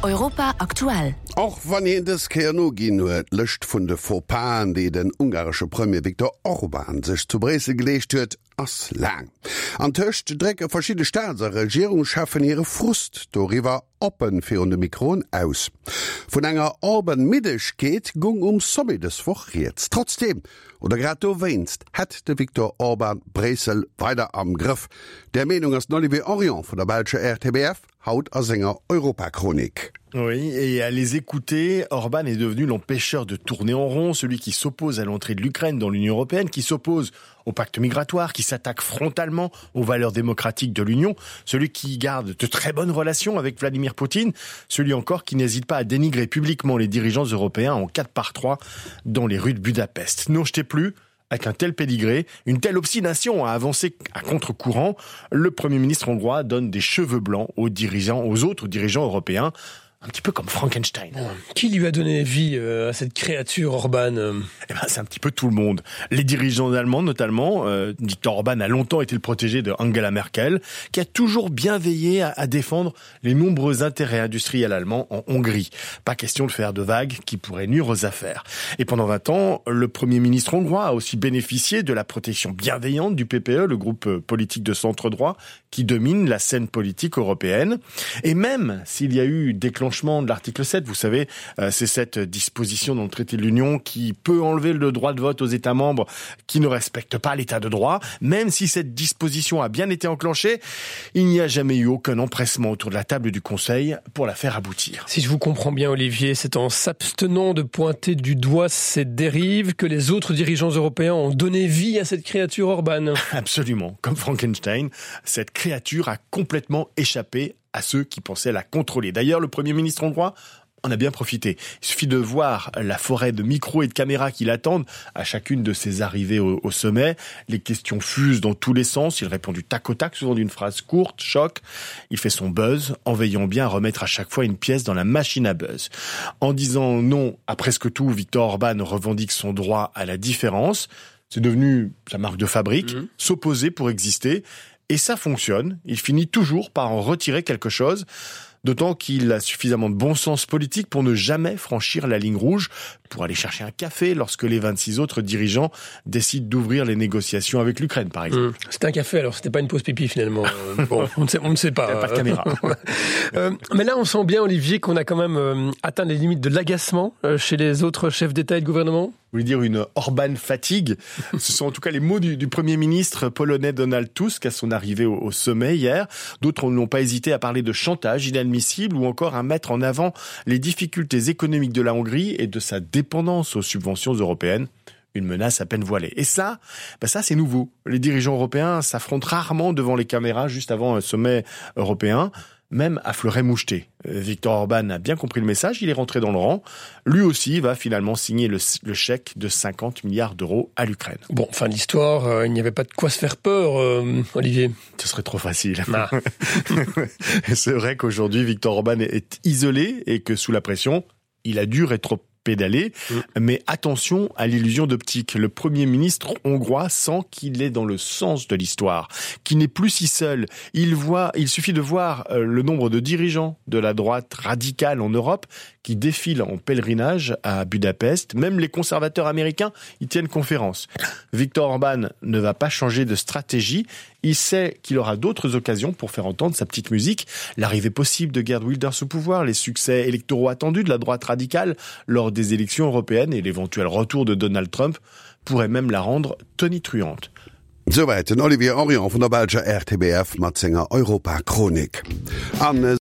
Europa aktuell. Och wann hien dës Kéier noginn huet, d'Lëscht vun de Faux-Pasen, déi den ungaresche Premier Viktor Orban sech zu Bréissel geleescht huet, ass laang. Antëscht drécke verschidde Staats a Regierungscheffen hire Frust doriwwer oppen virun de Mikroen aus. Vun enger Orban-Middegkeet gung um Sommet dës Woch rieds. Trotzdeem, oder grad dowéinst, hätt de Viktor Orban Bréissel weider am Grëff. Där Meenung ass den Olivier Henrion vun der belscher RTBF. Haut a senger Europachronik. Oui, et à les écouter, Orban est devenu l'empêcheur de tourner en rond, celui qui s'oppose à l'entrée de l'Ukraine dans l'Union européenne, qui s'oppose au pacte migratoire, qui s'attaque frontalement aux valeurs démocratiques de l'Union, celui qui garde de très bonnes relations avec Vladimir Poutine, celui encore qui n'hésite pas à dénigrer publiquement les dirigeants européens en 4 par 3 dans les rues de Budapest. Non, je t'ai plus, Avec un tel pédigré, une telle obstination à avancer à contre-courant, le Premier ministre hongrois donne des cheveux blancs aux dirigeants, aux autres dirigeants européens, un petit peu comme Frankenstein. Qui lui a donné vie euh, à cette créature Orban euh Eh ben, c'est un petit peu tout le monde. Les dirigeants allemands notamment, euh, Viktor Orban a longtemps été le protégé de Angela Merkel, qui a toujours bien veillé à, à défendre les nombreux intérêts industriels allemands en Hongrie. Pas question de faire de vagues qui pourraient nuire aux affaires. Et pendant 20 ans, le premier ministre hongrois a aussi bénéficié de la protection bienveillante du PPE, le groupe euh, politique de centre droit qui domine la scène politique européenne. Et même s'il y a eu déclenchement de l'article 7, vous savez, euh, c'est cette disposition dans le traité de l'Union qui peut enlever le droit de vote aux États membres qui ne respectent pas l'état de droit, même si cette disposition a bien été enclenchée, il n'y a jamais eu aucun empressement autour de la table du Conseil pour la faire aboutir. Si je vous comprends bien Olivier, c'est en s'abstenant de pointer du doigt cette dérive que les autres dirigeants européens ont donné vie à cette créature Orban. Absolument, comme Frankenstein, cette créature a complètement échappé à ceux qui pensaient la contrôler. D'ailleurs, le Premier ministre hongrois en a bien profité. Il suffit de voir la forêt de micros et de caméras qui l'attendent à chacune de ses arrivées au, au sommet. Les questions fusent dans tous les sens. Il répond du tac au tac, souvent d'une phrase courte, choc. Il fait son buzz en veillant bien à remettre à chaque fois une pièce dans la machine à buzz. En disant non à presque tout, Victor Orban revendique son droit à la différence. C'est devenu sa marque de fabrique, mmh. s'opposer pour exister. Et ça fonctionne. Il finit toujours par en retirer quelque chose d'autant qu'il a suffisamment de bon sens politique pour ne jamais franchir la ligne rouge pour aller chercher un café lorsque les 26 autres dirigeants décident d'ouvrir les négociations avec l'Ukraine par exemple. Mmh. C'est un café alors c'était pas une pause pipi finalement. Euh, bon, on ne sait, on ne sait pas. pas de caméra. euh, mais là on sent bien Olivier qu'on a quand même euh, atteint les limites de l'agacement euh, chez les autres chefs d'État et de gouvernement. Vous voulez dire une Orban fatigue. Ce sont en tout cas les mots du, du Premier ministre polonais Donald Tusk à son arrivée au, au sommet hier. D'autres n'ont pas hésité à parler de chantage inadmissible ou encore à mettre en avant les difficultés économiques de la Hongrie et de sa dépendance aux subventions européennes une menace à peine voilée. Et ça, ben ça c'est nouveau. Les dirigeants européens s'affrontent rarement devant les caméras juste avant un sommet européen même à fleuret moucheté. Euh, Victor Orban a bien compris le message, il est rentré dans le rang. Lui aussi va finalement signer le, le chèque de 50 milliards d'euros à l'Ukraine. Bon, fin de l'histoire, euh, il n'y avait pas de quoi se faire peur, euh, Olivier. Ce serait trop facile. Ah. C'est vrai qu'aujourd'hui, Victor Orban est isolé et que sous la pression, il a dû rétro pédaler. Mm. Mais attention à l'illusion d'optique. Le Premier ministre hongrois sent qu'il est dans le sens de l'histoire, qu'il n'est plus si seul. Il voit, il suffit de voir euh, le nombre de dirigeants de la droite radicale en Europe qui défilent en pèlerinage à Budapest. Même les conservateurs américains y tiennent conférence. Victor Orban ne va pas changer de stratégie. Il sait qu'il aura d'autres occasions pour faire entendre sa petite musique, l'arrivée possible de Gerd Wilders au pouvoir, les succès électoraux attendus de la droite radicale lors des élections européennes et l'éventuel retour de Donald Trump pourrait même la rendre tonitruante. Souwäit den Olivier Henrion vun der belscher RTBF mat senger Europachronik. An.